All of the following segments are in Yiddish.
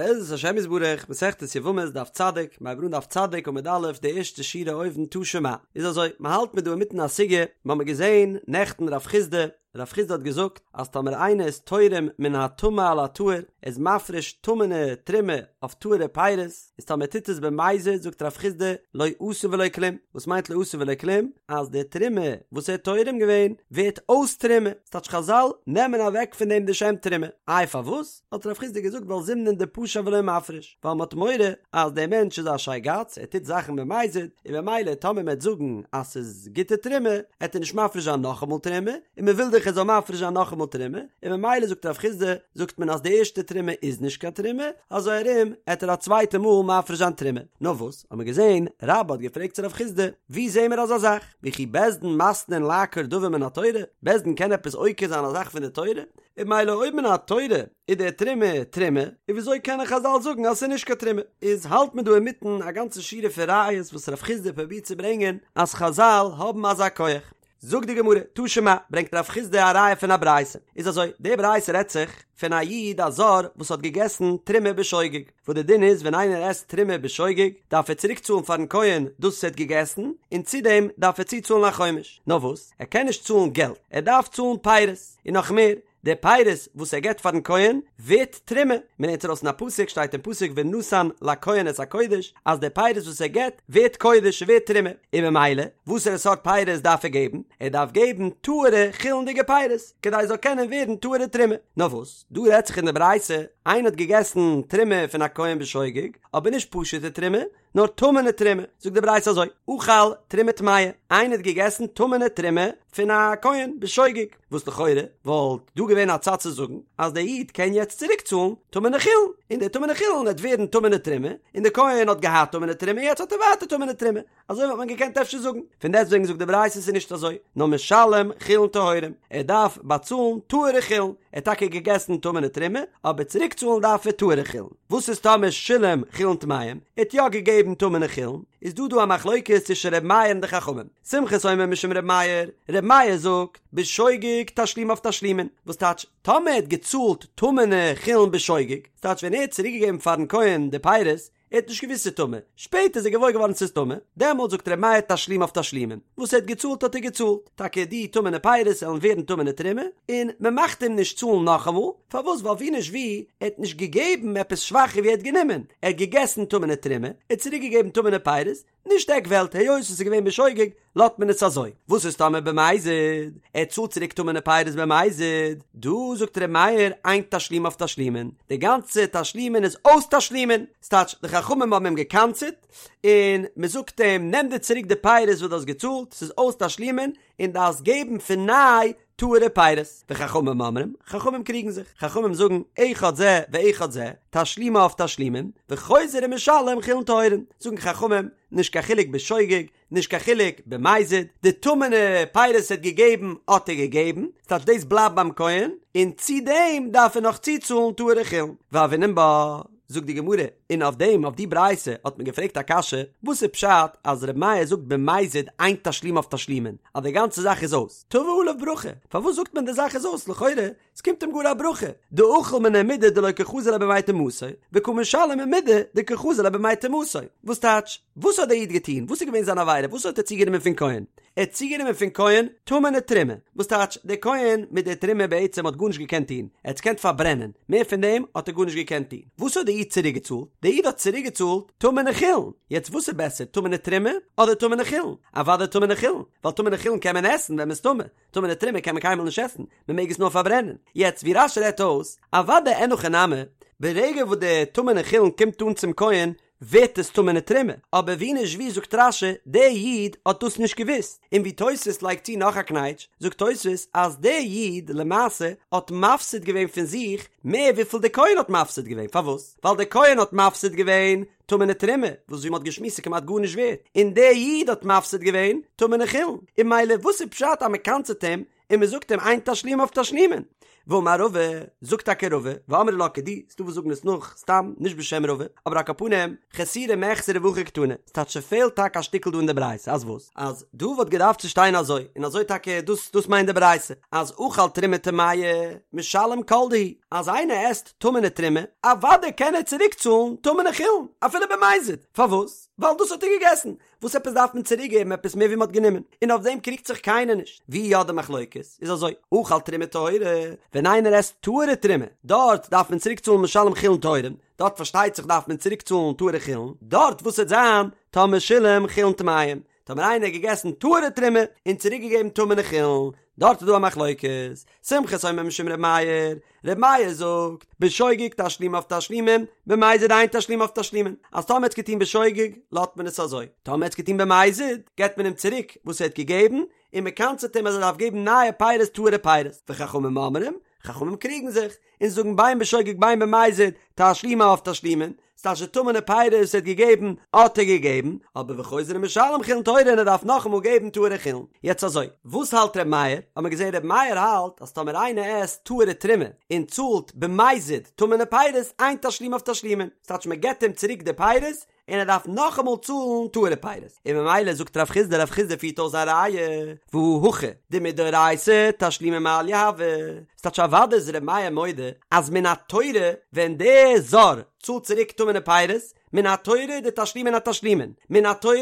בעזרת השם יתברך, מסכת יבמות דף צדיק, מ'הייבט אן דף צדיק עמוד א', די ערשטע שורה אויבן תא שמע. איז אזוי, מ'האלט מיר דא אינמיטן א סוגיא, מ'האמיר געזען נעכטן רב חיסדא, רב חיסדא האט געזאגט אז טאמער איינער איז תורם מן הטמא על הטהור, ער איז מפריש טמא'נע תרומה אויף טהור'ע פירות, איז טאמער ער טוט עס במזיד זאגט רב חיסדא לא עשה ולא כלום, וואס מיינט לא עשה ולא כלום? אז די תרומה וואס ער האט תורם געווען ווערט אויס תרומה, ס'טייטש חזל נעמען אוועק פון דעם די שם תרומה, איי פארוואס? האט רב חיסדא געזאגט ווייל זימנין דפשע ולא מפריש, ווייל מ'האט מורא אז דער מענטש איז א שייגאץ, ער טוט זאכן במזיד, און במילא טאמער מ'עט זאגן אז ס'איז גוטע תרומה, עט ער נישט מפריש זיין נאכאמאל תרומה, און מ'וויל דאך ער זאל מפריש זיין נאכאמאל תרומה, און במילא זאגט רב חיסדא, זאגט מען אז די ערשטע תרומה איז נישט קיין תרומה, אזוי ארום עט ער א צווייטע מאל מפריש זיין תרומה. נאר וואס, האט מען געזען, רבה האט געפרעגט צו רב חיסדא, ווי זעהן מיר אזא זאך? וכי בית דין מתנין לעקור דבר מן התורה? בית דין קען עפעס עוקר זיין א זאך פון די תורה? און במילא אויב מן התורה איז די תרומה תרומה, און וויאזוי קענען חזל זאגן אז ס'איז נישט קיין תרומה? איז האלט מען דא אינמיטן א גאנצע שורה פון ראיות וואס רב חיסדא פרובירט צו ברענגען אז חזל האבן אזא כח. זאגט די גמרא, תא שמע, ברענגט רב חיסדא א ראיה פון א ברייתא, איז אזוי, די ברייתא רעדט זיך פון א איד א זר וואס האט געגעסן תרומה בשוגג, וואס די דין איז ווען איינער עסט תרומה בשוגג דארף ער צוריק צאלן פארן כהן דאס וואס ער האט געגעסן, און צו דעם דארף ער צוצאלן א חומש, נאר וואס, ער קען נישט צאלן געלט, ער דארף צאלן פירות, און נאך מער, די פירות וואס ער געבט פארן כהן ווערט תרומה, מען לערנט ארויס אין א פסוק, שטייט אין פסוק ונתן לכהן את הקודש, אז די פירות וואס ער געבט ווערט קודש, ווערט תרומה, און ממילא וואסערע סארט פירות דארף ער געבן? ער דארף געבן טהור'ע חולין'דיגע פירות, כדי עס זאל קענען ווערן טהור'ע תרומה. נאר וואס, דא רעדט זיך אין די ברייתא, איינער האט געגעסן תרומה פון א כהן בשוגג, אבער נישט פשוט'ע תרומה, נאר טמא'נע תרומה, זאגט די ברייתא אזוי, אכל תרומה טמאה, איינער האט געגעסן טמא'נע תרומה פון א כהן בשוגג, וואס לכאורה וואלט דא געווען א צד צו זאגן אז דער איד קען יעצט צוריק צאלן טמא'נע חולין, און די טמא'נע חולין וועט ווערן טמא'נע תרומה, און דער כהן האט געהאט טמא'נע תרומה יעצט האט ער ווייטער טמא'נע תרומה, אזוי וואלט מען געקענט אפשר זאגן, פון דעסטוועגן זאגט די ברייתא ס'איז נישט אזוי, נאר משלם חולין טהורים, ער דארף באצאלן טהור'ע חולין, ער האט טאקע געגעסן טמא'נע תרומה, אבער צוריק צאלן דארף ער טהור'ע חולין. וואס איז טאמער שילם חולין טמאים, ער האט יא געגעבן טמא'נע חולין, איז דא דא א מחלוקת צווישן ר' מאיר און די חכמים, סומכוס אומר משום ר' מאיר, ר' מאיר זאגט, בשוגג תשלומיו תשלומין, וואס טייטש, טאמער ער האט געצאלט טמא'נע חולין בשוגג, ס'טייטש ווען ער האט צוריק געגעבן פארן כהן די פירות, ער האט נישט געוואוסט ס'איז טמא, שפעטער איז ער געוואויר געווארן ס'איז טמא, דעמאלט זאגט ר' מאיר תשלומיו תשלומין, וואס ער האט געצאלט האט ער געצאלט, טאקע די טמא'נע פירות עלן ווערן טמא'נע תרומה, און מען מאכט אים נישט צאלן נאכאמאל, פארוואס ווייל ווי נישט ווי, ער האט נישט געגעבן עפעס שוואכער ווי ער האט גענומען, ער האט געגעסן טמא'נע תרומה, ער האט צוריק געגעבן טמא'נע פירות, נישט עק וועלט, היות עס איז געווען בשוגג, לאזט מען עס אזוי. וואס איז טאמער במזיד? ער צאלט צוריק טמא'נע פירות במזיד. דא זאגט ר' מאיר אין תשלומיו תשלומין, די גאנצע תשלומין איז אויס תשלומין, ס'טייטש די חכמים האבן אים גע'קנס'עט, און מ'זאגט אים נעם דיר צוריק די פירות וואס דו האסט געצאלט, ס'איז אויס תשלומין, און דארפסט געבן פון ניי טהור'ע פירות. וחכמים אומרים, חכמים קריגן זיך, חכמים זאגן, אחד זה ואחד זה, תשלומיו תשלומין, וחוזר ומשלם חולין טהורין, זאגן חכמים, נישט קיין חילוק בשוגג, נישט קיין חילוק במזיד, די טמא'נע פירות ער האט געגעבן האט ער געגעבן, ס'טייטש דאס בלייבט ביים כהן, און צו דעם דארף ער נאך צוצאלן טהור'ע חולין. והוינן בה, זאגט די גמרא, און אויף דעם אויף די ברייתא האט מען געפרעגט א קשיא, וואס איז פשט אז ר' מאיר זאגט במזיד אין תשלומיו תשלומין, אז די גאנצע זאך איז אויס, תבא עליו ברכה, פארוואס זאגט מען די זאך איז אויס, לכאורה ס'קומט אים גאר א ברכה, דאכיל מיניה מידי דלא קא חזי ליה בימי טומאתו, וקא משלם מידי דקא חזי ליה בימי טומאתו. וואס טייטש? וואס האט דער איד געטון? וואס איז געווען זיין עבירה? וואס האט ער צוגענומען פון כהן? ער האט צוגענומען פון כהן טמא'נע תרומה. וואס טייטש? דער כהן מיט דער תרומה בעצם האט גארנישט געקענט טון. ער האט עס געקענט פארברענען. מער פון דעם האט ער גארנישט געקענט טון. וואס האט דער איד צוריקגעצאלט? דער איד האט צוריקגעצאלט טמא'נע חולין. יעצט וואס איז בעסער, טמא'נע תרומה אדער טמא'נע חולין? אוודאי טמא'נע חולין, ווייל טמא'נע חולין קען מען עסן ווען מ'איז טמא. טמא'נע תרומה קען מען קיינמאל נישט עסן, מען מעג עס נאר פארברענען. יעצט ווי רש"י רעדט אויס, אוודאי אין הכי נמי, ברגע וואס די טמא'נע חולין קומט אן צום כהן, ווערט עס טמא'נע תרומה, אבער ווי נישט ווי זאגט רש"י, דער איד האט דאס נישט געוואוסט, און ווי תוספות לייגט צו נאך א קנייטש, זאגט תוספות אז דער איד למעשה האט מפסיד געווען פון זיך מער וויפיל דער כהן האט מפסיד געווען, פארוואס? ווייל דער כהן האט מפסיד געווען טמא'נע תרומה, וואס ווי מ'האט געשמועסט איז כמעט גארנישט ווערט, און דער איד האט מפסיד געווען טמא'נע חולין, און ממילא וואס איז פשט אז מ'קנס'עט אים און מ'זאגט אים אין תשלומיו תשלומין? ואמר רבא, זאגט טאקע רבא, ואמרי לה כדי, ס'דא וואס זאגן עס נאך, סתם, נישט בשם רבא, אבער על כל פנים, חסורי מחסרא והכי קתני, ס'טייטש ס'פעלט טאקע א שטיקל דא אין די ברייתא, אז וואס? אז דא וואלט געדארפט צו שטיין אזוי, און אזוי טאקע דאס דאס מיינט די ברייתא, אז אכל תרומה טמאה, משלם כל דהו, אז איינער עסט טמא'נע תרומה, אוודאי קען ער צוריק צאלן טמא'נע חולין, אפילו במזיד, פארוואס? ווייל דאס האט ער געגעסן, וואס עפעס דארף מען צוריק געבן עפעס מער ווי מען האט גענומען? און אויף דעם קריגט זיך קיינער נישט. ווי יא די מחלוקת איז אזוי, אכל תרומה טהורה, ווען איינער עסט טהור'ע תרומה, דארט דארף מען צוריק צאלן משלם חולין טהורים, דארט פארשטייט זיך דארף מען צוריק צאלן טהור'ע חולין, דארט וואס וועט זיין טאמער שילם חולין טמאים, טאמער איינער האט געגעסן טהור'ע תרומה און צוריק געגעבן טמא'נע חולין, דארט איז דא א מחלוקת, סומכוס אומר משום ר' מאיר, ר' מאיר זאגט, בשוגג תשלומיו תשלומין, במזיד אין תשלומיו תשלומין, אז טאמער האט עס געטון בשוגג, לאזט מען עס אזוי, טאמער האט עס געטון במזיד, געבט מען אים צוריק וואס ער האט געגעבן, און מען קנס'עט אים אז ער דארף געבן נייע פירות טהור'ע פירות, וחכמים אומרים, חכמים קריגן זיך, און זאגן בין בשוגג בין במזיד, תשלומיו תשלומין, ס'טייטש די טמא'נע פירות וואס ער האט געגעבן, האט ער געגעבן, אבער וחוזר ומשלם חולין טהורין און ער דארף נאכאמאל געבן טהור'ע חולין. יעצט אזוי, וואס האלט ר' מאיר? האט מען געזען ר' מאיר האלט אז טאמער איינער עסט טהור'ע תרומה און צאלט במזיד טמא'נע פירות, אין תשלומיו תשלומין, ס'טייטש מען געבט אים צוריק די פירות, און ער דארף נאכאמאל צאלן טהור'ע פירות, און ממילא זאגט רב חיסדא, רב חיסדא פירט אויס זיין ראיה, והא הכא דמדאורייתא תשלומי מעליא הוו, ס'טייטש אוודאי איז ר' מאיר מודה אז מן התורה ווען דער זר צאלט צוריק טמא'נע פירות, מן התורה איז די תשלומין א תשלומין, מן התורה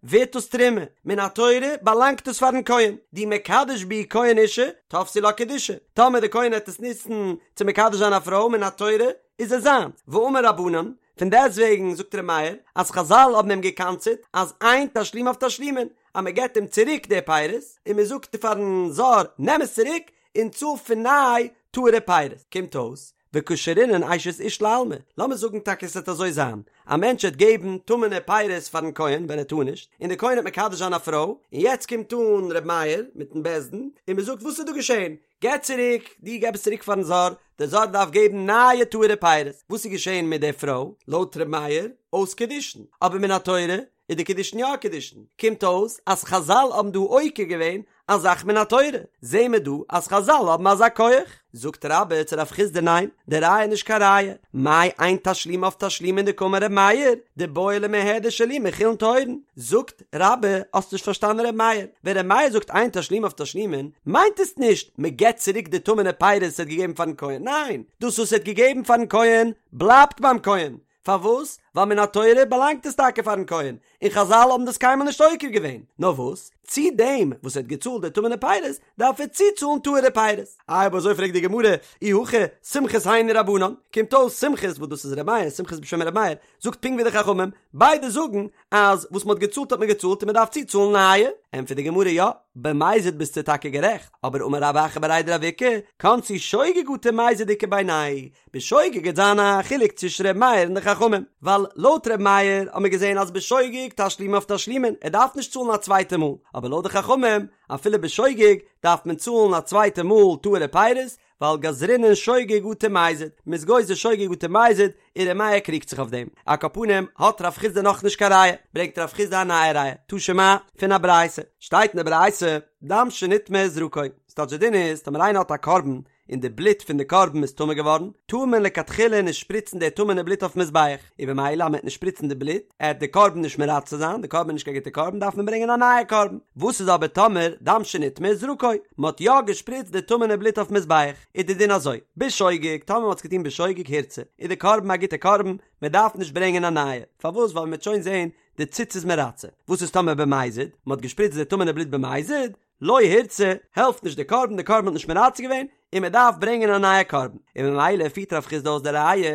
ווערט דאס תרומה, מן התורה באלאנגט עס פארן כהן, דאי מקדש בהו כהן אשה, תפסי לה קידושי, טאמער די כהן העט עס נוצן צו מקדש זיין א פרוי מן התורה איז עס זיינס, ואמור רבנן, פון דעסטוועגן זאגט ר' מאיר אז חזל האבן אים געקנס'עט אז אין תשלומיו תשלומין, אז מען געבט אים צוריק די פירות, און מען זאגט פארן זר נעם עס צוריק און צאל פון ניי טהור'ע פירות. קומט אויס וקשרינן אשת איש לעלמא, לאמיר זאגן טאקע עס וועט אזוי זיין, א מענטש וועט געבן טמא'נע פירות פארן כהן ווען ער טאר נישט, און דער כהן וועט מקדש זיין א פרוי, און יעצט קומט אן ר' מאיר מיטן בית דין און מען זאגט וואס איז דא געשען, געב צוריק, דו געב עס צוריק פארן זר, דער זר דארף געבן נייע טהור'ע פירות. וואס איז געשען מיט דער פרוי? לויט ר' מאיר, אויס קידושין. אבער מן התורה איז די קידושין יא קידושין. קומט אויס אז חזל האבן דא עוקר געווען א זאך מן התורה. זעהן מיר דא אז חזל האבן אזא כח. זאגט רבה צו רב חיסדא ניין, די ראיה איז נישט קיין ראיה. מאי אין תשלומיו תשלומין דקאמר ר' מאיר, דבעי למיהדר שלומי חולין טהורין. זאגט רבה, האסט נישט פארשטאנען ר' מאיר. ווען ר' מאיר זאגט אין תשלומיו תשלומין, מיינט עס נישט מען געבט צוריק די טמא'נע פירות וואס ער האט געגעבן פארן כהן, ניין, דאס וואס ער האט געגעבן פארן כהן בלייבט ביים כהן, פארוואס? ווייל מן התורה באלאנגט עס טאקע פארן כהן, און חזל האבן דאס קיינמאל נישט עוקר געווען, נאר וואס? צו דעם וואס ער האט געצאלט די טמא'נע פירות, דארף ער צוצאלן טהור'ע פירות. איי אויב אזוי פרעגט די גמרא, אי הכי סומכוס היינו רבנן, קומט אויס סומכוס וואס דאס איז ר' מאיר, סומכוס בשם ר' מאיר, זאגט פונקט ווי די חכמים, ביידע זאגן אז וואס מ'האט געצאלט האט מען געצאלט און מ'דארף צוצאלן נייע. ענטפערט די גמרא יא, במזיד ביסטו טאקע גערעכט, אבער אמר רב אחא בריה דרב איקא, קנסו שוגג אטו מזיד איכא בינייהו, בשוגג גייט זיין א חילוק צווישן ר' מאיר און די חכמים, ווייל לויט ר' מאיר האט מען געזען אז בשוגג תשלומיו תשלומין, ער דארף נישט צאלן א צווייטע מאל, אבער לויט די חכמים אפילו בשוגג דארף מען צאלן א צווייטע מאל טהור'ע פירות, ווייל גזרינן שוגג אטו מזיד, מ'איז גוזר שוגג אטו מזיד, און ר' מאיר קריגט זיך אויף דעם. על כל פנים, האט רב חיסדא נאכנישט קיין ראיה, ברענגט רב חיסדא א נייע ראיה, תא שמע, פון א ברייתא, שטייט אין די ברייתא, דם שנטמא זרקו, ס'טייטש די דין איז, טאמער איינער האט א קרבן, און די בלוט פון די קרבן איז טמא געווארן, טאר מען לכתחילה נישט שפריצן די טמא'נע בלוט אויפן מזבח, און במילא אז מ'עט נישט שפריצן די בלוט, עט די קרבן נישט מרצה זיין, די קרבן איז נישט קיין גוטע קרבן, דארף מען ברענגען א נייע קרבן. וואס איז אבער טאמער דם שנטמא זרקו, מ'האט יא געשפריצט די טמא'נע בלוט אויפן מזבח, איז די דין אזוי, בשוגג, טאמער מ'האט עס געטון בשוגג הורצה, איז די קרבן א גוטע קרבן, מ'דארף נישט ברענגען א נייע, פארוואס ווייל מ'וועט שוין זען די ציץ איז מרצה. וואס איז טאמער במזיד, מ'האט געשפריצט די טמא'נע בלוט במזיד, לא הורצה, העלפט נישט די קרבן, די קרבן האט נישט מרצה געווען, און מען דארף ברענגען א נייע קרבן, און ממילא פירט רב חיסדא אויס די ראיה,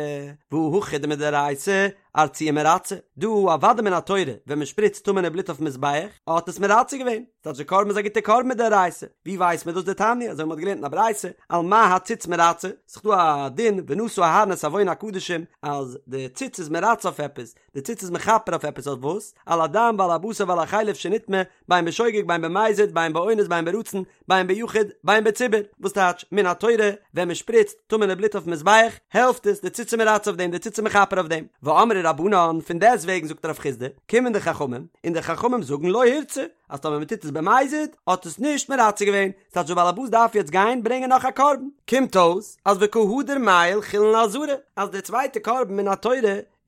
והא הכא דמדאורייתא ארצויי מרצה, דא אוודאי מן התורה ווען מען שפריצט טמא'נע בלוט אויפן מזבח, האט עס מרצה געווען, ס'טייטש די קרבן איז א גוטע קרבן מדאורייתא, ווי ווייסט מען דאס דתניא, אזוי ווי מען האט געלערנט אין א ברייתא, על מה הציץ מרצה, ס'איז דא א דין ונשא אהרן את עון הקדשים אז די ציץ איז מרצה אויף עפעס, די ציץ איז מכפר אויף עפעס אויף וואס? על הדם ועל הבשר ועל החלב שנטמא, בין בשוגג בין במזיד בין באונס בין ברצון בין ביחיד בין בציבור, וואס טייטש מן. מן התורה ווען מען שפריצט טמא'נע בלוט אויפן מזבח העלפט עס, די ציץ איז מרצה אויף דעם, די ציץ איז מכפר אויף דעם. ואמרי רבנן, פון דעסט וועגן זאגט רב חסדא, קומען די חכמים, און די חכמים זאגן לא הורצה, אז טאמער מען טוט עס במזיד, האט עס נישט מרצה געווען, ס'טייטש דער בעל הבית דארף יעצט גיין ברענגען נאך א קרבן. קומט אויס אז וקא הדר מעייל חולין לעזרה, אז דער צווייטער קרבן מן התורה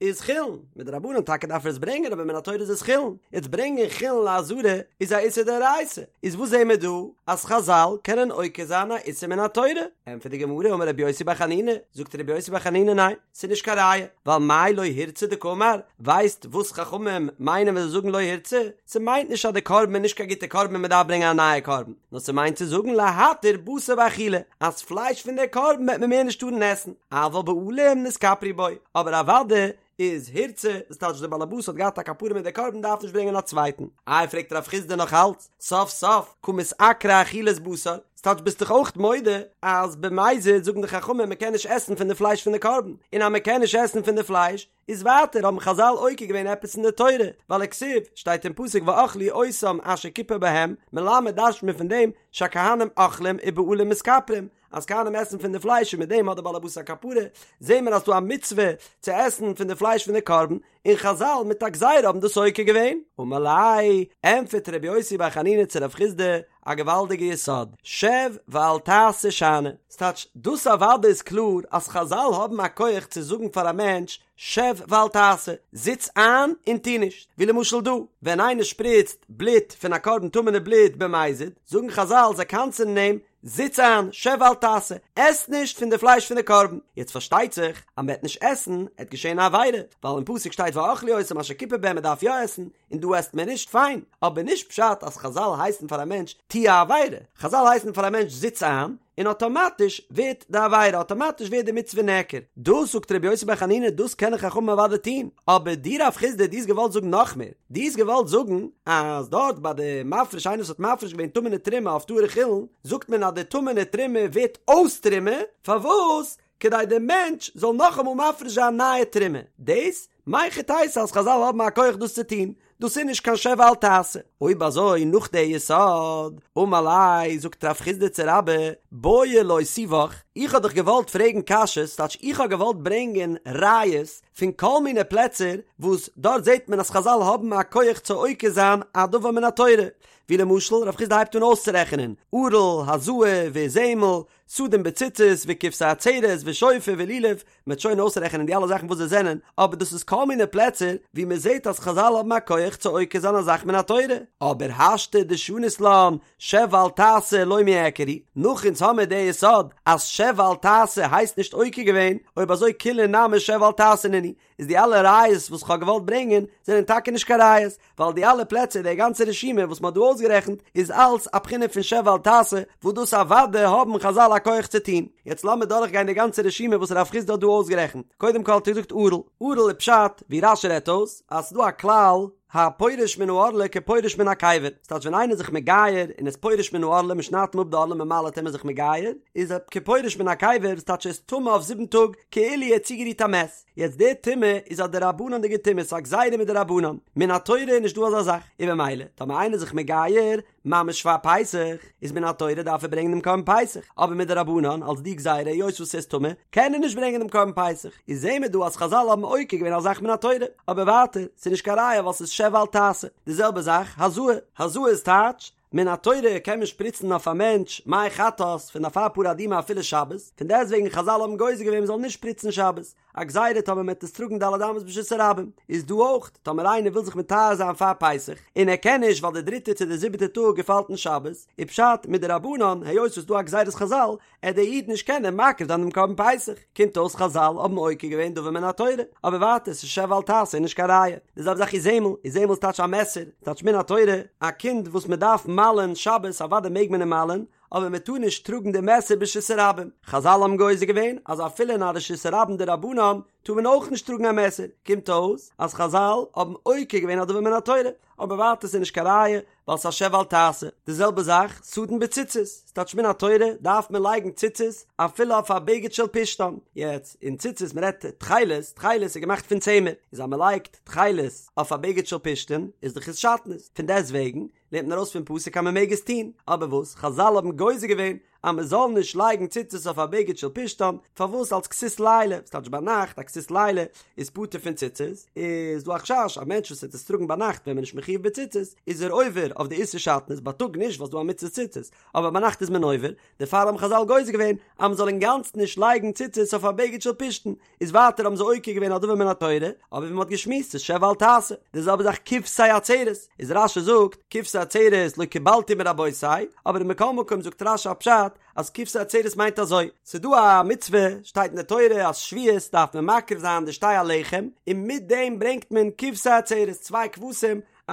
איז חולין, מדרבנן טאקע דארף ער עס ברענגען אבער מן התורה איז עס חולין, יעצט ברענגען חולין לעזרה איז א איסור דאורייתא, איז וואס זעהן מיר דא? אז חזל קענען עוקר זיין א איסור מן התורה? ענטפערט די גמרא אמר רבי יוסי בר חנינא, זאגט רבי יוסי בר חנינא ניין, ס'איז נישט קיין ראיה, ווייל מאי לא הורצה דקאמר, ווייסט וואס חכמים מיינען ווען זיי זאגן לא הורצה? ס'מיינט נישט אז די קרבן איז נישט קיין גוטע קרבן און מ'דארף ברענגען א נייע קרבן, נאר ס'מיינט צו זאגן להתיר בשר באכילה, אז פלייש פון די קרבן וועט מען מער נישט טארן עסן, אבל בעלים נתכפרו בו, אבער אוודאי איז הורצה, דאס טייטש דער באלעבאס האט געהאט א כפרה מיט די קרבן דארף נישט ברענגען א צווייטן. איי פרעגט רב חסדא נאך אלץ, סוף סוף קא מתעקרא אכילת בשר, ס'טייטש ביסט דאך אויך מודה אז במזיד זאגן די חכמים מ'קען נישט עסן פון די פלייש פון די קרבן, און אז מ'קען נישט עסן פון די פלייש, איז ווייטער האבן חזל עוקר געווען עפעס אין די תורה, ווייל וכתיב, שטייט אין פסוק ואכלו אותם אשר כיפר בהם, מלמד דרש'ט מען פון דעם שהכהנים אוכלים ובעלים מתכפרים, אז כהנים עסן פון די פלייש און מיט דעם האט דער בעל הבית א כפרה, זעהן מיר אז ס'דא א מצוה צו עסן פון די פלייש פון די קרבן, און חזל מיט א גזירה האבן דאס עוקר געווען. אמר ליה, ענטפערט רבי יוסי בר חנינא צו רב חסדא, א געוואלדיגע יסוד, שב ואל תעשה שאני. ס'טייטש, דאס אוודאי איז קלאר אז חזל האבן א כח צו זאגן פאר א מענטש שב ואל תעשה, זיץ איין און טו נישט, ווי למשל דא, ווען איינער שפריצט בלוט פון א קרבן טמא'נע בלוט במזיד, זאגן חזל זיי קנס'ענען אים, זיץ איין, שב ואל תעשה, עס נישט פון די פלייש פון די קרבן. יעצט פארשטייט זיך אז מ'וועט נישט עסן, עט געשען א עבירה, ווייל אין פסוק שטייט ואכלו אותם אשר כיפר בהם מ'דארף יא עסן, און דא עסט מען נישט, פיין, אבער נישט פשט אז חזל הייסן פאר א מענטש טו א עבירה, חזל הייסן פאר א מענטש זיץ איין, און אטאמאטיש ווערט די עבירה, אטאמאטיש ווערט די מצוה נעקר. דאס זאגט רבי יוסי בר חנינא דאס קענען חכמים אוודאי טון, אבער דו רב חסדא דו האסט געוואלט זאגן נאך מער, דו האסט געוואלט זאגן אז דארט ביי די מפריש איינער וואס האט מפריש געווען טמא'נע תרומה אויף טהור'ע חולין, זאגט מען אז די טמא'נע תרומה ווערט אויס תרומה, פארוואס? כדי די מענטש זאל נאכאמאל מפריש זיין נייע תרומה, דאס מהיכי תיתי אז חזל האבן א כח דאס צו טון, דאס איז נישט קיין שב ואל תעשה. אויב אזוי נאך די יסוד, אמר ליה, זאגט רב חסדא צו רבה, בעי לאותובך, איך האב דיך געוואלט פרעגן קשיות, ס'טייטש איך האב געוואלט ברענגען ראיות פון כל מיני פלעצער וואס דארט זעט מען אז חזל האבן א כח צו עוקר זיין א דבר מן התורה, ווי למשל רב חסדא הייבט אן אויסצורעכענען, ערל, הזאה, ואיזמל, סדין בציצית וכבשי עצרת ושופר ולולב, מ'וועט שוין אויסרעכענען די אלע זאכן וואס זיי זענען, אבער דאס איז כל מיני פלעצער ווי מ'זעט אז חזל האבן א כח צו עוקר זיין א זאך מן התורה, אבער השתא דשנית לן שב ואל תעשה לא מיעקר הוא, נאך אונז האמיר די יסוד אז שב ואל תעשה הייסט נישט עוקר געווען, אויב אזוי כולהו נמי שב ואל תעשה נינהו, איז די אלע ראיות וואס כ'האב געוואלט ברענגען זענען טאקע נישט קיין ראיות, ווייל די אלע פלעצער די גאנצע רשימה וואס מ'האט דא אויסגערעכנט איז אלץ א בחינה פון שב ואל תעשה וואס דאס אוודאי האבן חזל א כח צו טון. יעצט לאמיר דורכגיין די גאנצע רשימה וואס רב חסדא האט דא אויסגערעכנט. קודם כל האט ער געזאגט ערל. ערל איז פשט, ווי רש"י רעדט אויס, אז ס'איז דא א כלל, הפורש מן הערלה כפורש מן הקבר, ס'טייטש ווען איינער איז זיך מגייר און איז פורש מן הערלה מ'שניידט אים אפ די ערלה מ'מל'עט אים איז זיך מגייר, איז ער כפורש מן הקבר, ס'טייטש ער איז טמא אויף זיבן טאג כאילו ער האט צוגערירט א מת. יעצט די טומאה איז א דרבנן'דיגע טומאה, ס'איז א גזירה מדרבנן, מן התורה איז נישט דא אזא זאך, און במילא טאמער איינער איז זיך מגייר ממש פאר פסח, איז מן התורה דארף ער ברענגען דעם קרבן פסח, אבער מדרבנן אלס די גזירה היות וואס ער איז טמא קען ער נישט ברענגען דעם קרבן פסח, איז זעהן מיר דא אז חזל האבן עוקר געווען א זאך מן התורה, אבער ווייטער ס'איז נישט קיין ראיה ווייל ס'איז שב ואל תעשה, די זעלבע זאך הזאה, הזאה איז טייטש מן התורה קען מען שפריצן אויף א מענטש מי חטאת פון אפר פרה אדומה אפילו שבת, פון דעסטוועגן חזל האבן גוזר געווען מען זאל נישט שפריצן שבת, א גזירה טאמער מען וועט עס טראגן ד' אמות ברשות הרבים, איז דא אויך טאמער איינער וויל זיך מטהר זיין פאר פסח און ער קען נישט ווייל די דריטע צו די זיבעטע טאג געפאלט אין שבת, איז פשט מדרבנן היות ס'איז דא א גזירת חזל עט דער איד נישט קענען מקריב זיין דעם קרבן פסח, קומט אויס חזל האבן עוקר געווען דבר מן התורה, אבער ווייטער ס'איז שב ואל תעשה איז נישט קיין ראיה, די זעלבע זאך איזמל, איזמל איז טייטש א מעסער, טייטש מן התורה, א קינד וואס מען דארף מל'ען שבת אוודאי מעג מען אים מל'ען, אבער מען טאר נישט טראגן די מעסער ברשות הרבים, חזל האבן גוזר געווען אז אפילו אין א רשות הרבים דרבנן טאר מען אויך נישט טראגן א מעסער, קומט אויס אז חזל האבן עוקר געווען א דבר מן התורה, אבער ווייטער ס'איז נישט קיין ראיה, ווייל ס'איז א שב ואל תעשה. די זעלבע זאך, סדין בציצית, ס'טייטש מן התורה דארף מען לייגן ציצית אפילו אויף א בגד של פשתן. יעצט, אין ציצית מ'רעדט תכלת, תכלת איז געמאכט פון צמר, איז אז מ'לייגט תכלת אויף א בגד של פשתן איז דאך עס שעטנז, פון דעסט וועגן לערנט מען ארויס פון פסוק אז מ'מעג עס טון, אבער וואס חזל האבן גוזר געווען. אז מען זאל נישט לייגן ציצית אויף א בגד של פשתן, פארוואס אלס כסות לילה, וואס טייטש ביינאכט, א כסות לילה איז פטור פון ציצית, איז דא א חשש א מענטש וואס וועט עס טראגן ביינאכט ווען מען איז נישט מחויב בציצית, איז ער עובר אויף די איסור שעטנז, בייטאג נישט ווייל ס'דא א מצוות ציצית, אבער ביינאכט איז מען עובר, דערפאר האבן חזל גוזר געווען אז מען זאל אינגאנצן נישט לייגן ציצית אויף א בגד של פשתן, איז ווייטער האבן זיי עוקר געווען א דבר מן התורה, אבער ווי מען האט געשמועסט ס'איז שב ואל תעשה, די זעלבע זאך כבשי עצרת, איז רש"י זאגט כבשי עצרת לא קיבלתי מרבותי, אבער מכל מקום זאגט רש"י א פשט אז כבשי עצרת מיינט אזוי, ס'איז דא א מצוה, שטייט אין די תורה אז שבועות דארף מען מקריב זיין די שתי הלחם, און מיט דעם ברענגט מען כבשי עצרת, צוויי כבשים, א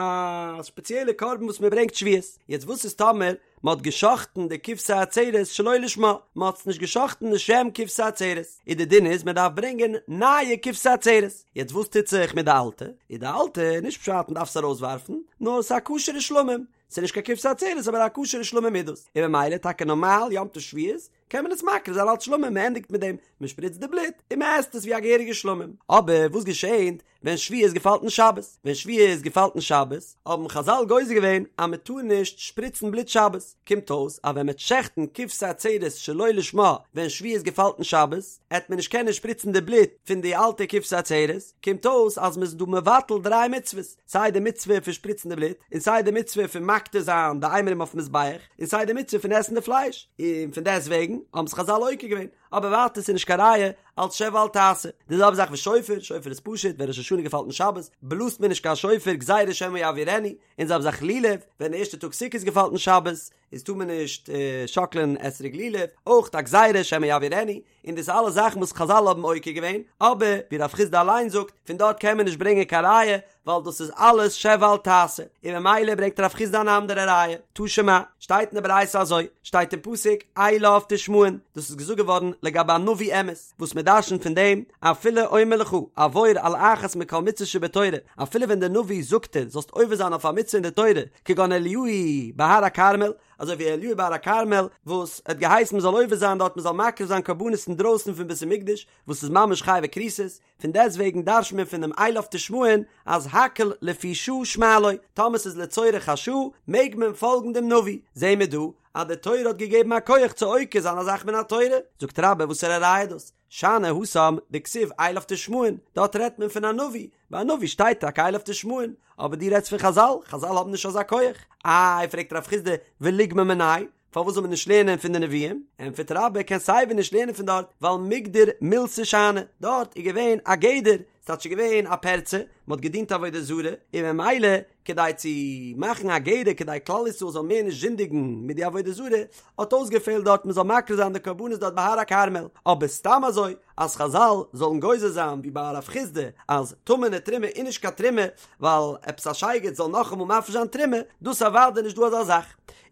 ספעציעלע קרבן וואס מען ברענגט שבועות, יעצט וואס איז טאמער מען האט גע'שחט'ן די כבשי עצרת שלא לשמה, מען האט עס נישט גע'שחט'ן לשם כבשי עצרת, איז די דין איז מען דארף ברענגען נייע כבשי עצרת, יעצט וואס טוט זיך מיט די אלטע, איז די אלטע נישט פשט מען דארף עס ארויסווארפן, נאר עס איז א כשר'ע שלמים, עס איז נישט קיין כבשי עצרת אבער א כשר'ע שלמים איז דאס, און ממילא טאקע נארמאל יום טוב שבועות קען מען עס מקריב זיין אלץ שלמים, מען ענדיגט מיט דעם, מען שפריצט די בלוט און מען עסט עס ווי א געהעריגע שלמים, אבער וואס געשענט ווען שבועות געפאלט אין שבת, ווען שבועות געפאלט אין שבת, האבן חזל גוזר געווען אז מען טאר נישט שפריצן בלוט שבת, קומט אויס אז ווען מען וועט שעכטן כבשי עצרת שלא לשמה ווען שבועות געפאלט אין שבת, עט מען נישט קענען שפריצן די בלוט פון די אלטע כבשי עצרת, קומט אויס אז מען איז דא מבטל דריי מצוות, סיי די מצוה פון שפריצן די בלוט, און סיי די מצוה פון מקטיר זיין די אימורים אויפן מזבח, און סיי די מצוה פון עסן די פלייש, און פון דעסט וועגן האבן עס חזל עוקר געווען. אבער ווייטער ס'איז נישט קיין ראיה אלץ שב ואל תעשה. די זעלבע זאך ושופר, שופר איז פשוט, ווען ראש השנה געפאלט אין שבת, בלאזט מען נישט קיין שופר גזירה שמא יעבירנו, און די זעלבע זאך לולב, ווען די ערשטע טאג סוכות געפאלט אין שבת, איז טאר מען נישט שאקלען אתרוג לולב, אויך א גזירה שמא יעבירנו, און דאס אלע זאכן וואס חזל האבן עוקר געווען, אבער ווי רב חסדא אליין זאגט, פון דארט קען מען נישט ברענגען קיין ראיה, ווייל דאס איז אלעס שב ואל תעשה, און ממילא ברענגט רב חסדא אן אנדערע ראיה, תא שמע, שטייט אין די ברייתא אזוי, שטייט אין פסוק, אליו תשמעון, דאס איז געזאגט געווארן לגבי א נביא אמת, וואס מען דרשנ'ט פון דעם, אפילו אומר לך, עבור על אחת מכל מצוות שבתורה, אפילו ווען דער נביא זאגט דיר זאלסט עובר זיין אויף א מצוה אין די תורה, כגון אליהו בהר הכרמל, אזוי ווי אליהו בהר הכרמל, וואס האט געהייסן מען זאל עובר זיין דארט מען זאל מקריב זיין קרבנות אינדרויסן פון בית המקדש, וואס איז ממש חייבי כריתות, פון דעסט וועגן דרש'ט מען פון דעם אליו תשמעון אז הכל לפי שעה שמע לו, טאמער ס'איז לצורך השעה מעג מען פאלגן דעם נביא, זעהן מיר דא אז די תורה האט געגעבן א כח צו עוקר זיין א זאך מן התורה, זאגט רבה וואסערע ראיה איז דאס? שאני התם דכתיב אליו תשמעון, דארט רעדט מען פון א נביא, ביי א נביא שטייט טאקע אליו תשמעון, אבער דו רעדסט פון חזל, חזל האבן נישט אזא כח, איי פרעגט רב חסדא וליגמר מיניה, פארוואס זאל מען נישט לערנען פון די נביאים? ענטפערט רבה קען סיי ווי נישט לערנען פון דארט, ווייל מיגדר מילתא שאני, דארט איז געווען א גדר, ס'טייטש ס'איז געווען א פרצה, מ'האט געדינט עבודה זרה, און ממילא כדי צו מאכן א גדר כדי כלל ישראל זאל מער נישט זינדיגן מיט די עבודה זרה, האט אויסגעפעלט דארט מ'זאל מקריב זיין די קרבנות דארט בהר הכרמל, אבער סתם אזוי אז חזל זאלן גוזר זיין ווי ביי רב חסדא אז טמא'נע תרומה איז נישט קיין תרומה ווייל עפעס א שייגעץ זאל נאכאמאל מפריש זיין תרומה, דאס אוודאי נישט דא אזא זאך.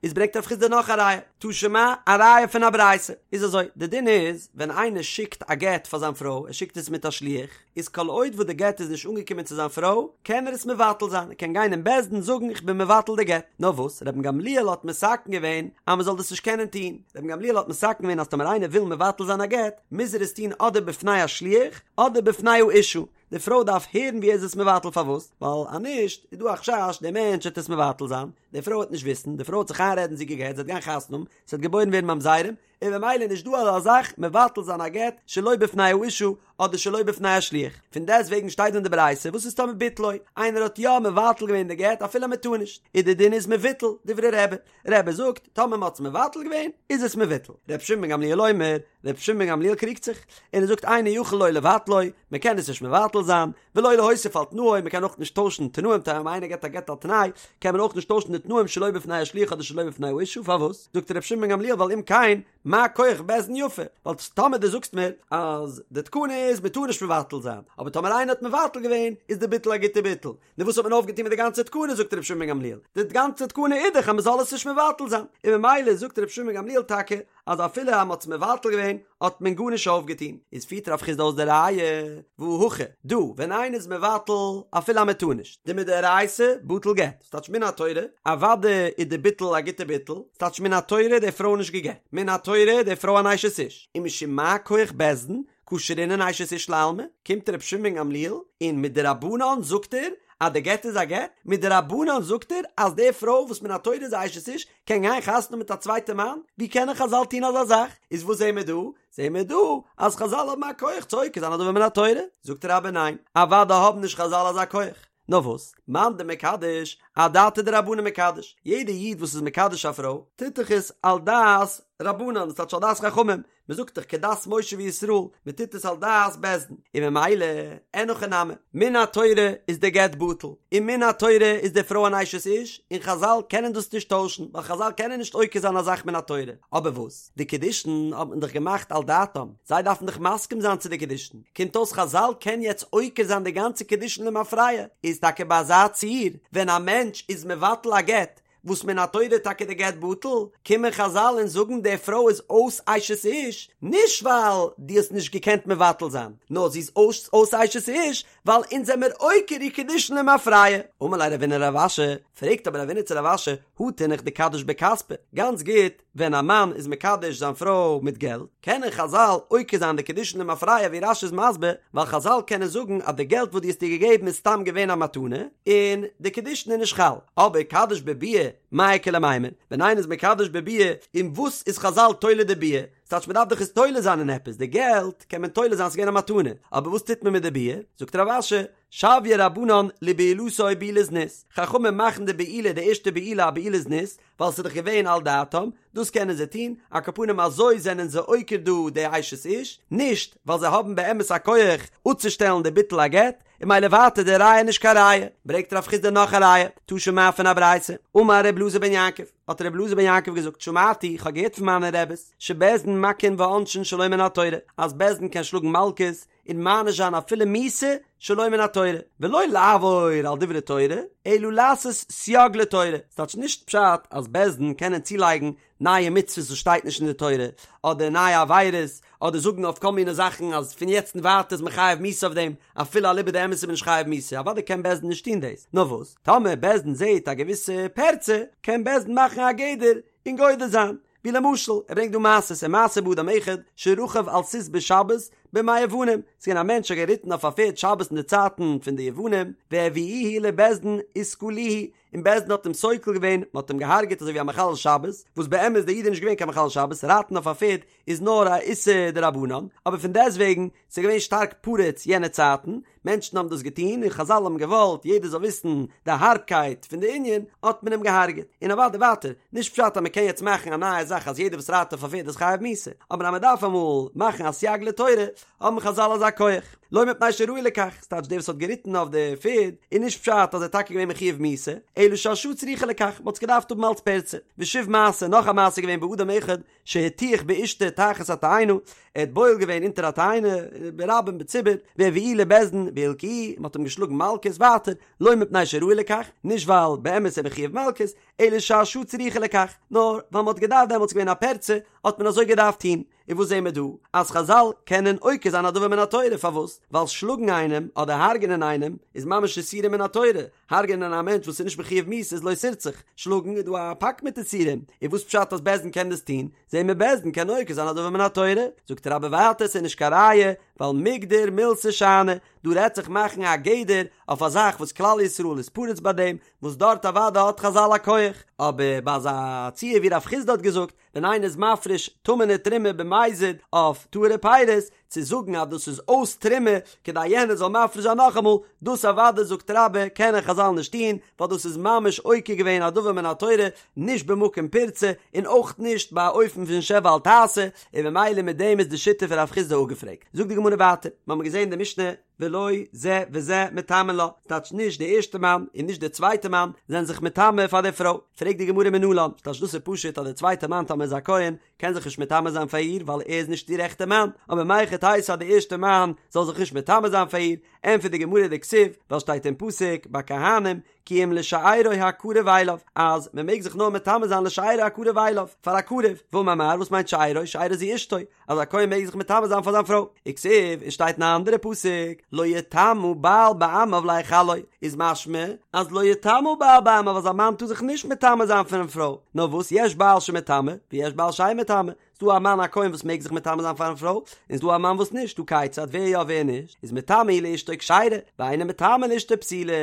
איז ברענגט רב חסדא נאך א ראיה, תא שמע, א ראיה פון א ברייתא, איז אזוי, די דין איז, ווען איינער שיקט א גט פאר זיין פרוי, ער שיקט עס מיט א שליח, איז כל עוד וואס די גט איז נישט אנגעקומען צו זיין פרוי, קען ער עס מבטל זיין, ער קען גיין אין בית דין זאגן איך בין מבטל די גט, נאר וואס, רבן גמליאל האט מתקן געווען אז מען זאל דאס נישט קענען טון, רבן גמליאל האט מתקן געווען אז טאמער איינער וויל מבטל זיין א גט, מוז ער עס טון אדער בפני השליח, אדער בפני האשה, די פרוי דארף הערן ווי ער איז עס מבטל פארוואס? ווייל אז נישט איז דא א חשש דער מענטש וועט עס מבטל זיין, די פרוי וועט נישט וויסן, די פרוי וועט זיך איינרעדן זי איז גע'גט, זי וועט גיין חתונה האבן, ס'וועט געבוירן ווערן ממזרים, און במילא איז נישט דא אזא זאך מבטל זיין א גט שלא בפני האשה אדער שלא בפני השליח, פון דעסט וועגן שטייט דא אין די ברייתא וואס איז טאמער ביטלו, איינער האט יא מבטל געווען די גט אפילו מען טאר נישט, איז די דין איז מבוטל, דברי רבי, רבי זאגט טאמער מען האט עס מבטל געווען איז עס מבוטל, ר' שמעון בן גמליאל אומר, ר' שמעון בן גמליאל קריגט זיך, און ער זאגט אינו יכול לא לבטלו, מען קען עס נישט מבטל זיין, ולא להוסיף על תנאו, מען קען אויך נישט טוישן תנאים, טאמער איינער געבט א גט על תנאי, קען מען אויך נישט טוישן די תנאים שלא בפני השליח אדער שלא בפני האשה, פארוואס? זאגט ר' שמעון בן גמליאל ווייל אם כן, מה כח בית דין יפה, ווייל טאמער דו זאגסט מיר אז די תקנה איז מען טאר נישט מבטל זיין, אבער טאמער איינער האט מבטל געווען איז די ביטול א גוטע ביטול, נו וואס האט מען אויפגעטון מיט די גאנצע תקנה זאגט רבי שמעון בן גמליאל, די גאנצע תקנה איז דאך אז מען זאל עס נישט מבטל זיין, און ממילא זאגט רבי שמעון בן גמליאל טאקע אז אפילו אז מען האט עס מבטל געווען האט מען גארנישט אויפגעטון, איז פירט רב חסדא אויס די ראיה, והא הכא, דא ווען איינער איז מבטל אפילו אז מען טאר נישט, דמדאורייתא בטל גט, ס'טייטש מן התורה, אוודאי איז די ביטול א גוטע ביטול, ס'טייטש מן התורה איז די פרוי נישט גע'גט, מן התורה איז די פרוי אן אשת איש, ומשום מה כח בית דין קא שרינן אשת איש לעלמא, קומט רבי שמעון בן גמליאל און מדרבנן זאגט ער. אז די גט איז א גט? מדרבנן זאגט ער אז די פרוי וואס מן התורה איז א אשת איש קען גיין חתונה האבן מיט א צווייטע מאן? ווי קענען חזל טון אזא זאך? איז וואס זעהן מיר דא? זעהן מיר דא אז חזל האבן א כח צו עוקר זיין א דבר מן התורה? זאגט רבה ניין, אוודאי האבן נישט חזל אזא כח. נאר וואס? מאן דמקדש, אדעתא דרבנן מקדש, יעדע איד וואס איז מקדש א פרוי, טוט דאך עס על דעת רבנן, דאס טייטש על דעת חכמים, מען זאגט דאך כדת משה וישראל, מען טוט עס על דעת בית דין, און ממילא, אין הכי נמי, מן התורה איז די גט בטל, און מן התורה איז די פרוי אן אשת איש, און חזל קענען דאס נישט טוישן, ווייל חזל קענען נישט עוקר זיין א זאך מן התורה, אבער וואס? די קידושין האט מען דאך געמאכט על דעתם, זיי דארפן דאך מסכים זיין צו די קידושין, קומט אויס חזל קען יעצט עוקר זיין די גאנצע קידושין למפרע, איז טאקע ביי אזא ציור ווען א מענטש איז מבטל א גט, וואס מן התורה איז טאקע די גט בטל, קומען חזל און זאגן די פרוי איז אויס אשת איש, נישט ווייל דו האסט נישט געקענט מבטל זיין, נאר זי איז אויס אויס אשת איש ווייל אונז זעמיר עוקר איר קידושין למפרע. אמר ליה רבינא לרב אשי, פרעגט אבער רבינא צו רב אשי, הא תינח דקדיש בכספא, גאנץ גוט, ווען א מאן איז מקדש זיין פרוי מיט געלט, קענען חזל עוקר זיין די קידושין למפרע ווי רש"י איז מסביר, ווייל חזל קענען זאגן אז די געלט וואס דו האסט איר געגעבן איז סתם געווען א מתנה, און די קידושין איז נישט חל. אבער קדיש בביאה, מאי איכא למימר, ווען איינער איז מקדש בביאה, אין וואס איז חזל תולה די ביאה? ס'טייטש מ'דארף דאך עס תולה זיין אין עפעס, די געלט קען מען תולה זיין ס'איז געווען א מתנה, אבער וואס טוט מען מיט די ביאה? זאגט רב אשי, שויוה רבנן לבעילתו בעילת זנות, חכמים מאכן די בעילה די ערשטע בעילה א בעילת זנות, ווייל ס'איז דאך געווען על דעתם, דאס קענען זיי טון, על כל פנים אזוי זענען זיי עוקר דא די אשת איש, נישט ווייל זיי האבן באמת א כח אפצושטעלן די ביטול הגט, און ממילא ווייטער די ראיה נישט קיין ראיה, ברענגט רב חסדא נאך א ראיה, תא שמע פון א ברייתא, אמר ר' אלעזר בן יעקב, האט ר' אלעזר בן יעקב געזאגט שמעתי, כ'האב געהערט פון מיינע רעבעס, שבית דין מכין ועונשין שלא מן התורה, אז בית דין קען שלאגן מלקות, און מעניש זיין אפילו מיתה שלא מן התורה, ולא לעבור על דברי תורה, אלא לעשות סייג לתורה, ס'טייטש נישט פשט אז בית דין קענען צולייגן נייע מצוות וואס שטייט נישט אין די תורה, אדער נייע עבירות, אדער זאגן אויף כל מיני זאכן אז פון יעצט און ווייטער איז מען חייב מיתה אויף דעם, אפילו אליבא דאמת איז מען נישט חייב מיתה, אוודאי קען בית דין נישט טון דאס, נאר וואס, טאמער בית דין זעט א געוויסע פירצה, קען בית דין מאכן א גדר און גודר זיין. ווי למשל, ער ברענגט דא מעשות, ומעשה באדם אחד שרכב על סוס בשבת בימי יוונים, ס'איז געווען א מענטש האט געריטן אויף א פערד שבת אין די צייטן פון די יוונים, והביאוהו לבית דין וסקלוהו, און בית דין האט אים סוקל געווען, מען האט אים געהארגעט אזוי ווי א מחלל שבת, וואס באמת דער איד איז נישט געווען קיין מחלל שבת, רייטן אויף א פערד איז נאר א איסור דרבנן, אבער פון דעסטוועגן, ס'איז געווען שטארק פרוץ יענע צייטן, מענטשן האבן דאס געטון און חזל האבן געוואלט יעדער זאל וויסן די הארבקייט פון די ענין, האט מען אים געהארגעט. און אוודאי ווייטער, נישט פשט אז מען קען יעצט מאכן א נייע זאך אז יעדער וואס רייט אויף א פערד איז חייב מיתה, אבער אז מען דארף אמאל מאכן א סייג לתורה, האבן חזל אזא כח. לא מפני שראוי לכך, ס'טייטש דער וואס האט געריטן אויף די פערד, איז נישט פשט אז ער איז טאקע געווען מחויב מיתה, אלא שהשעה צריכה לכך, מען האט עס געדארפט האבן אלץ פירצה. ושוב מעשה, נאך א מעשה געווען באדם אחד, שהטיח באשתו תחת התאנה, ער האט בועל געווען אונטער א תאנה, ברבים בציבור, והביאוהו לבית דין והלקוהו, מען האט אים געשלאגן מלקות, ווייטער, לא מפני שראוי לכך, נישט ווייל באמת איז ער מחויב מלקות, אלא שהשעה צריכה לכך, נאר ווייל מען האט געדארפט דעמאלטס געווען א פירצה, האט מען אזוי געדארפט טון. און וואס זעהן מיר דא? אז חזל קענען עוקר זיין א דבר מן התורה, פארוואס? ווייל שלאגן איינעם אדער הרג'נען איינעם איז ממש איסורים מן התורה, הרג'נען א מענטש וואס איז נישט מחויב מיתה איז לא תרצח, שלאגן איז דא א פאק מיט איסורים, און וואס פשט אז בית דין קען דאס טון? זעהן מיר בית דין קען עוקר זיין א דבר מן התורה, זאגט רבה ווייטער ס'איז נישט קיין ראיה, ווייל מיגדר מילתא שאני, דא רעדט זיך מאכן א גדר אויף א זאך וואס כלל ישראל איז פרוץ ביי דעם, וואס דארט אוודאי האט חזל א כח, אבער ביי אזא ציור ווי רב חסדא האט געזאגט, ווען איינער איז מפריש טמא'נע תרומה במזיד אויף טהור'ע פירות, צו זאגן אז דאס איז אויס תרומה כדי יענער זאל מפריש זיין נאכאמאל, דאס אוודאי זאגט רבה קענען חזל נישט טון, ווייל דאס איז ממש עוקר געווען א דבר מן התורה, נישט במקום פירצה, און אויך נישט ביי א אופן פון שב ואל תעשה, און ממילא מיט דעם איז די שיטה פון רב חסדא אפגעפרעגט. זאגט די גמרא ווייטער, מ'האמיר געזען אין די משנה, ולא זה וזה מטמאין לה, ס'טייטש נישט די ערשטע מאן און נישט די צווייטע מאן זענען זיך מטמא פאר די פרוי, פרעגט די גמרא מנלן, ס'טייטש דאס איז פשוט אז די צווייטע מאן טאמער איז א כהן קען זיך נישט מטמא זיין פאר איר ווייל ער איז נישט איר עכטע מאן, אבער מהיכי תיתי אז די ערשטע מאן זאל זיך נישט מטמא זיין פאר איר, ענטפערט די גמרא דכתיב, ווייל שטייט אין פסוק ביי כהנים כי אם לשארו הקרוב אליו, אז מען מעג זיך נאר מטמא זיין לשארו הקרוב אליו, פאר א קרוב, ואמר מר, וואס מיינט שארו, שארו זו אשתו, אז א כהן מעג זיך מטמא זיין פאר זיין פרוי, וכתיב, און שטייט אין א אנדערע פסוק, לא יטמא בעל בעמיו להחלו, איז משמע אז לא יטמא בעל בעמיו אז א מאן טאר זיך נישט מטמא זיין פארן פרוי, נאר וואס יש בעל שמטמא, ויש בעל שאין מטמא. ס'דא א מאן א כהן וואס מעג זיך מטמא זיין פארן פרוי, און ס'דא א מאן וואס נישט, טא כיצד, ווער יא ווער נישט, איז מטמא הוא לאשתו כשרה, ואינו מטמא לאשתו פסולה,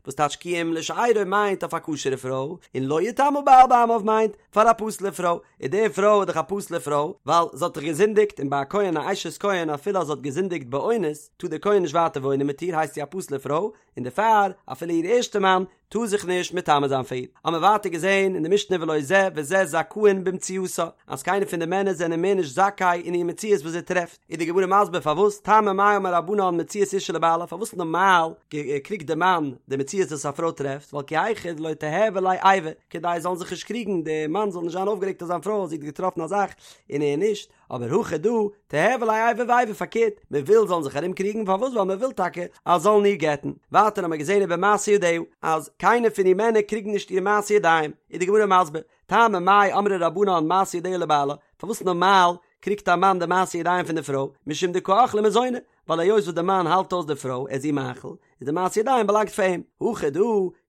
וואס טייטש כי אם לשארו מיינט אויף א כשר'ע פרוי, און לא יטמא בעל בעמיו מיינט פאר א פסול'ע פרוי, און די פרוי איז דאך א פסול'ע פרוי, ווייל זי האט דאך געזינדיגט, און ביי א כהן א אשת כהן אפילו אז זי האט געזינדיגט באונס, טאר דער כהן נישט ווייטער וואוינען מיט איר, הייסט זי א פסול'ע פרוי, און דערפאר אפילו איר ערשטע מאן טאר זיך נישט מטמא זיין פאר איר. האבן מיר ווייטער געזען אין די משנה ולא זה וזה זכאין במציאתה, אז קיינער פון די מענער זענען מער נישט זכאי אין איר מציאות וואס זי טרעפט, איז די גמרא מסביר פארוואס, טעמא מאי אמור רבנן מציאת אשה לבעלה, פארוואס נארמאל קריגט די מאן די מציאות וואס א פרוי טרעפט, ווייל כי היכי דלא תיהוי ליה איבה, כדי זאלן זיך נישט קריגן, די מאן זאל נישט זיין אויפגערעגט אויף זיין פרוי אז זי האט געטראפן א זאך און ער נישט, אבער הכא דא, תיהוי ליה איבה ואיבה פארקערט, מען וויל זאלן זיך ארום קריגן, פארוואס ווייל מען וויל טאקע אז זאלן איר גט'ן, ווייטער האמער געזען ובמעשה ידיה, אז קיינער פון איר מענער קריגן נישט איר מעשה ידיים, איז די גמרא מסביר, טעמא מאי אמרי רבנן מעשה ידיה לבעלה, פארוואס נארמאל קריגט א מאן די מעשה ידיים פון די פרוי, משום דקא אכלה מזוני, ווייל היות וואס די מאן האלט אויס די פרוי, ער איז איר מאכיל, איז די מעשה ידיים באלאנגט פאר אים. הכא דא,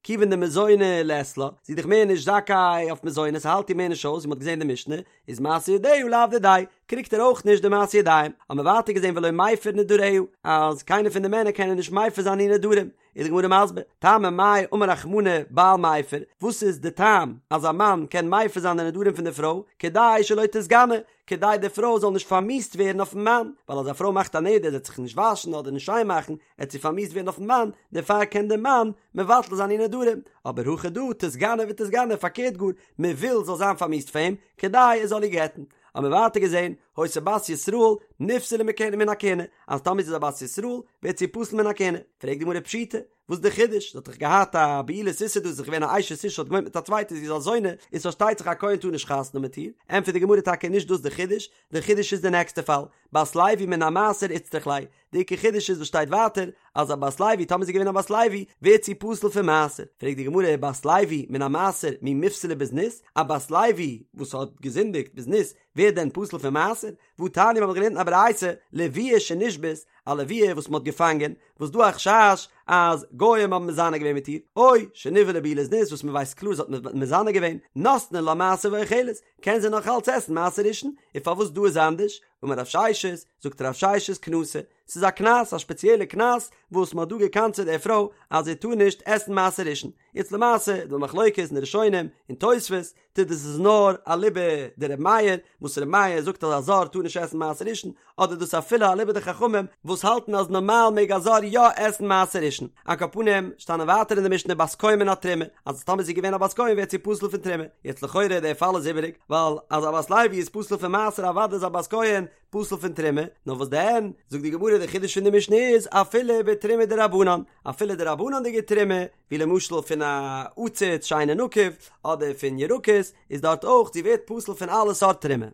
כיוון דמזוני לית לה, זי איז דאך מער נישט זכאי אויף מזונות, ס'האלט איר מער נישט אויס, ווי מ'האט געזען אין די משנה, איז מעשה ידיה לאו דידיה, קריגט ער אויך נישט די מעשה ידיים. האבן מיר ווייטער געזען ולא מפר נדריה, אז קיינער פון די מענער קענען נישט מפר זיין איר נדרים. איז די גמרא מסביר, טעמא מאי אמר רחמנא בעל מפר, וואס איז די טעם אז א מאן קען מפר זיין די נדרים פון די פרוי, כדי שלא תתגנה, כדי די פרוי זאל נישט פארמיאוסט ווערן אויפן מאן, ווייל אז א פרוי מאכט א נדר זי וועט זיך נישט וואשן אדער נישט שיין מאכן, עט זי פארמיאוסט ווערן אויפן מאן, דערפאר קען דער מאן מבטל זיין איר נדרים, אבער הכא דא תתגנה ותתגנה, פארקערט גאר, מען וויל זאל זיין פארמיאוסט פאר אים, כדי ער זאל איר גט'ן. האבן מיר ווייטער געזען, היתה בת ישראל נפסלה מכהונה מן הכהונה, אז טאמער זי איז א בת ישראל, ווערט זי פסול מן הכהונה. פרעגט די גמרא פשיטא, וואס איז די חידוש? זי האט דאך געהאט א בעילת איסור דא, זי איז געווען א אשת איש האט געוואוינט מיט א צווייטע, זי איז א זונה, איז פארשטייט זיך א כהן טאר נישט חתונה מיט איר. ענטפערט די גמרא טאקע נישט דאס די חידוש, די חידוש איז די נעקסטע פאל, בת לוי מן המעשר איצטריך ליה, די עיקר חידוש איז וואס שטייט ווייטער אז א בת לוי טאמער זי איז געווען א בת לוי ווערט זי פסול פון מעשר, פרעגט די גמרא בת לוי מן המעשר מי מיפסלא בזנות, א בת לוי וואס האט געזינדיגט בזנות ווערט דען פסול פון מעשר? והתניא מיר האבן געלערנט אין א ברייתא לוויה שנשבית, א לוויה וואס מען האט געפאנגען, וואס דא א חשש אז גוים האבן מזנה געווען מיט איר, או שנבעלה בעילת זנות וואס מען ווייסט קלאר זי האט מזנה געווען, נותנין לה מעשר ואוכלת, קען זי נאך אלץ עסן מעשר ראשון, און פארוואס דא איז אנדערש? אמר רב ששת, זאגט רב ששת קנסא, ס'איז א קנס, א שפעציעלע קנס, וואס מ'האט דא גע'קנס'עט די פרוי אז זי טאר נישט עסן מעשר ראשון. יעצט למעשה איז דא מחלוקת אין די ראשונים און תוספות, צו דאס איז נאר אליבא דר' מאיר, וואס ר' מאיר זאגט אז א זר טאר נישט עסן מעשר ראשון, אדער דאס אפילו אליבא דחכמים וואס האלטן אז נארמאל מעג א זר יא עסן מעשר ראשון. על כל פנים, שטאנען ווייטער אין די משנה בת כהן מן התרומה, אז טאמער זי איז געווען א בת כהן ווערט זי פסול פון תרומה. יעצט לכאורה דער פאל איז איבעריג, ווייל אז א בת לוי איז פסול פון מעשר אוודאי איז א בת כהן פסול פון תרומה, נאר וואס דען, זאגט די גמרא די חידוש פון די משנה איז אפילו בתרומה דרבנן, אפילו דרבנן'דיגע תרומה, ווי למשל פון א עציץ שאינו נקוב, אדער פון ירקות, איז דארט אויך זי ווערט פסול פון אלע סארט תרומה.